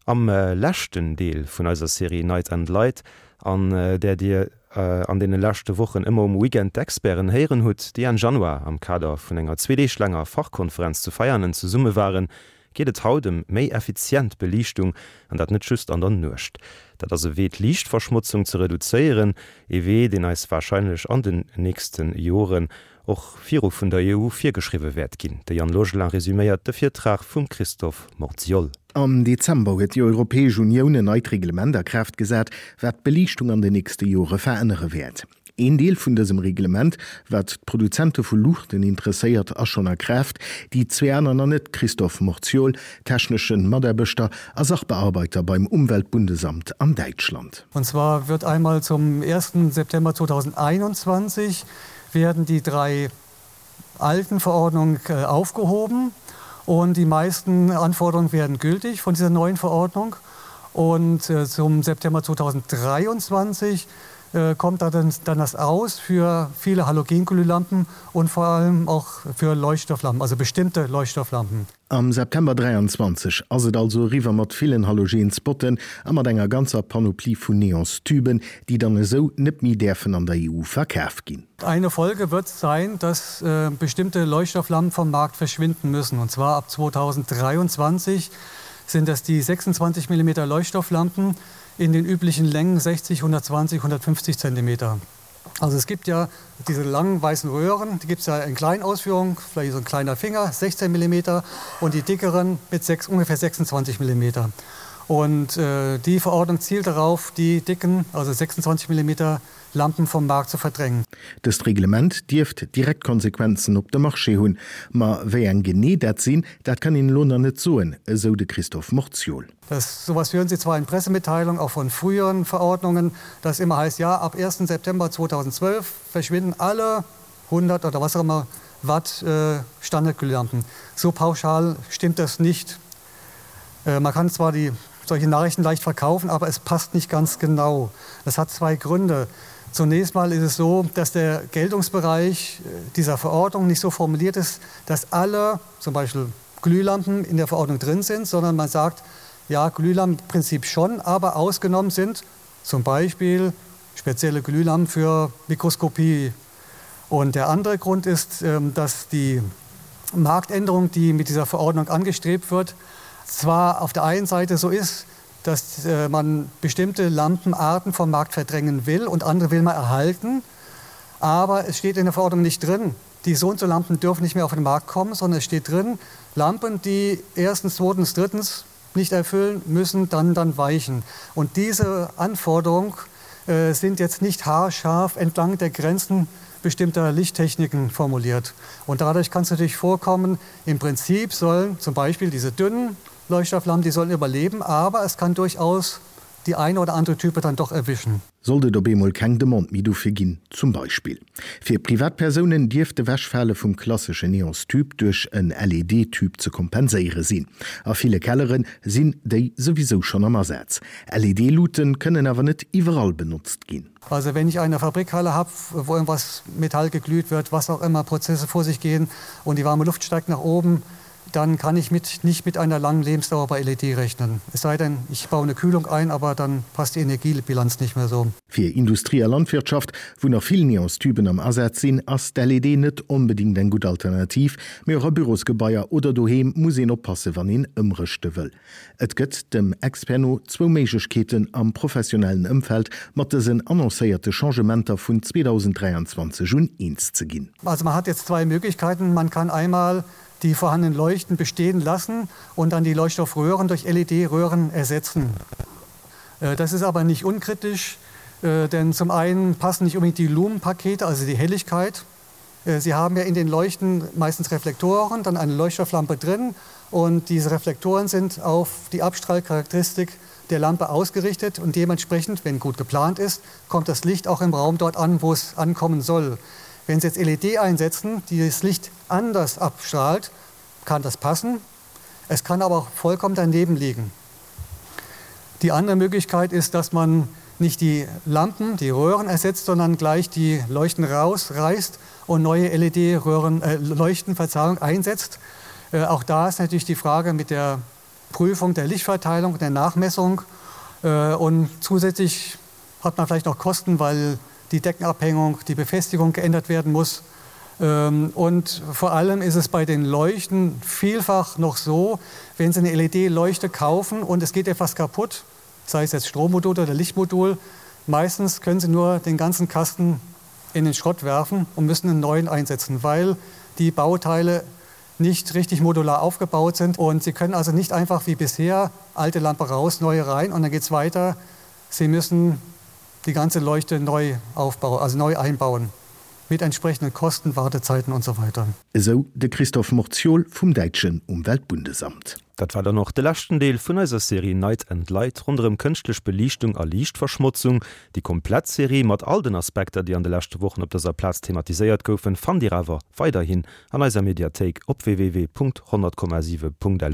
Am leschten Deel vun eiser Serie Night and Light, an där Dir an deene leschte Wochen ëmmer um Weekend d'Experten héieren hutt, déi Enn Januar am Kader vun enger zweedeeg laanger Fachkonferenz zu Veianen zesumme waren, geet et haut ëm méi effizient Beliichtung, an dat net just an der Nuecht. Dat ass e Wee d'Liichtverschmotzung ze reduzéieren, ee Wee, deen eis warscheinlech an den nächste Joren och viru vun der EU virgeschriwwe wäert ginn. De Yann Logelin resüméiert de Virtrag vum Christophe Morziol. Am Dezember huet déi Europäesch Unioun en neit Reglement a Kraaft gesat, wat d'Beliichtung an den nächste Jore verännere wäert. Een Deel vun dësem Reglement, wat d'Produzente vu Luuchten interesséiert, ass schonn a Kraaft, déi zwee aner nach net, Christophe Morziol, techneschen Mataarbechter a Sachbearbeiter beim Umweltbundesamt an Däitschland. Und zwar wird einmal zum ersten September 2021 werden die drei alten Verordnungen aufgehoben und die meisten Anforderungen werden gültig von dieser neuen Verordnung. Und zum September 2023 kommt dann das aus für viele Halogenglühlampen und vor allem auch für Leuchtstofflampen, also bestimmte Leuchtstofflampen. Am September 23 ass et also eriwwer mat villen Halogenspotten a mat enger ganzer Panoplie vun Neonstüben, déi dann esou net méi däerfen an der EU verkaf ginn. Eine Folge wird sein, dass bestimmte Leuchtstofflampen vom Markt verschwinden müssen. Und zwar ab 2023 sind das die 26 mm Leuchtstofflampen in den üblichen Längen 60, 120, 150 Zentimeter. Also es gibt ja diese langen weißen Röhren, die gibt es ja in kleinen Ausführungen, vielleicht so ein kleiner Finger, 16 mm und die dickeren mit 6, ungefähr 26 mm. Und äh, die Verordnung zielt darauf, die dicken, also 26 mm Lampen vom Markt zu verdrängen. Dëst Reglement dierft direkt Konsequenzen op de Marché hunn. Ma wéi eng genee dat sinn, dat kann een elo nach net soen, esou de Christophe Morziol. Das, sowas hören Sie zwar in Pressemitteilungen auch von früheren Verordnungen, dass immer heißt ja ab 1. September 2012 verschwinden alle 100 oder was auch immer Watt äh, Standardglühlampen. So pauschal stimmt das nicht. Äh, man kann zwar die solche Nachrichten leicht verkaufen, aber es passt nicht ganz genau. Das hat zwei Gründe. Zunächst mal ist es so, dass der Geltungsbereich äh, dieser Verordnung nicht so formuliert ist, dass alle zum Beispiel Glühlampen in der Verordnung drin sind, sondern man sagt, ja Glühlampenprinzip schon, aber ausgenommen sind zum Beispiel spezielle Glühlampen für Mikroskopie. Und der andere Grund ist, ähm, dass die Marktänderung, die mit dieser Verordnung angestrebt wird, zwar auf der einen Seite so ist, dass äh, man bestimmte Lampenarten vom Markt verdrängen will und andere will man erhalten, aber es steht in der Verordnung nicht drin. Die so und so Lampen dürfen nicht mehr auf den Markt kommen, sondern es steht drin, Lampen, die erstens, zweitens, drittens nicht erfüllen, müssen dann dann weichen. Und diese Anforderung äh, sind jetzt nicht haarscharf entlang der Grenzen bestimmter Lichttechniken formuliert. Und dadurch kann es natürlich vorkommen, im Prinzip sollen zum Beispiel diese dünnen Leuchtstofflampen, die sollen überleben, aber es kann durchaus die eine oder andere Type dann doch erwischen. Sollt et op eemol keng Demande méi dofir ginn, zum Beispill. Fir Privatpersounen dierft d'Ewechfale vum klassesche Neonstube duerch en LED-Tube ze kompenséiere sinn. A ville Kellere sinn déi souwisou schonn am Asaz. LED-Luute kënnen awer net iwwerall benotzt ginn. Also wenn ich eine Fabrikhalle hab, wo irgendwas Metall geglüht wird, was auch immer Prozesse vor sich gehen und die warme Luft steigt nach oben, dann kann ich mit, nicht mit einer langen Lebensdauer bei LED rechnen. Es sei denn, ich baue eine Kühlung ein, aber dann passt die Energiebilanz nicht mehr so. Fir Industrie a Landwirtschaft, wou nach vill Neonstuben am Asaz sinn, ass d'LED net onbedéngt eng gutt Alternativ. Mee och a Bürosgebaier oder doheem muss een oppasse wann een ëmrëschte wëll. Et gëtt dem Expert no zwou Méiglechkeeten am professionellen Ëmfeld mat dësen annoncéierte Changementer vun 2023 un eens ze ginn. Also man hat jetzt zwei Möglichkeiten, Man kann einmal die vorhandenen Leuchten bestehen lassen und dann die Leuchtstoffröhren durch LED-Röhren ersetzen. Äh, das ist aber nicht unkritisch, äh, denn zum einen passen nicht unbedingt die Lumenpakete, also die Helligkeit. Äh, Sie haben ja in den Leuchten meistens Reflektoren, dann eine Leuchtstofflampe drin und diese Reflektoren sind auf die Abstrahlcharakteristik der Lampe ausgerichtet und dementsprechend, wenn gut geplant ist, kommt das Licht auch im Raum dort an, wo es ankommen soll. Wenn Sie jetzt LED einsetzen, die das Licht anders abstrahlt, kann das passen. Es kann aber auch vollkommen daneben liegen. Die andere Möglichkeit ist, dass man nicht die Lampen, die Röhren ersetzt, sondern gleich die Leuchten rausreißt und neue LED-Röhren äh, Leuchten Verzeihung einsetzt. Äh, auch da ist natürlich die Frage mit der. Prüfung der Lichtverteilung, der Nachmessung äh, und zusätzlich hat man vielleicht noch Kosten, weil die Deckenabhängung, die Befestigung geändert werden muss. Ähm, und vor allem ist es bei den Leuchten vielfach noch so, wenn Sie eine LED-Leuchte kaufen und es geht etwas kaputt, sei es jetzt Strommodul oder Lichtmodul, meistens können Sie nur den ganzen Kasten in den Schrott werfen und müssen einen neuen einsetzen, weil die Bauteile nicht richtig modular aufgebaut sind und Sie können also nicht einfach wie bisher alte Lampe raus, neue rein und dann geht es weiter. Sie müssen die ganze Leuchte neu aufbauen, also neu einbauen mit entsprechenden Kosten, Wartezeiten und so weiter. Esou de Christoph Morziol vum däitschen Umweltbundesamt. Dat war dann och de leschten Deel vun eiser Serie Night and Light ronderëm kënschtlech Beliichtung a Liichtverschmotzung. Déi komplett Serie mat all den Aspekter, déi an de leschte Wochen op dëser Plaz thematiséiert goufen, fannt Dir awer weiderhin an eiser Mediathéik op www.100,7.lu.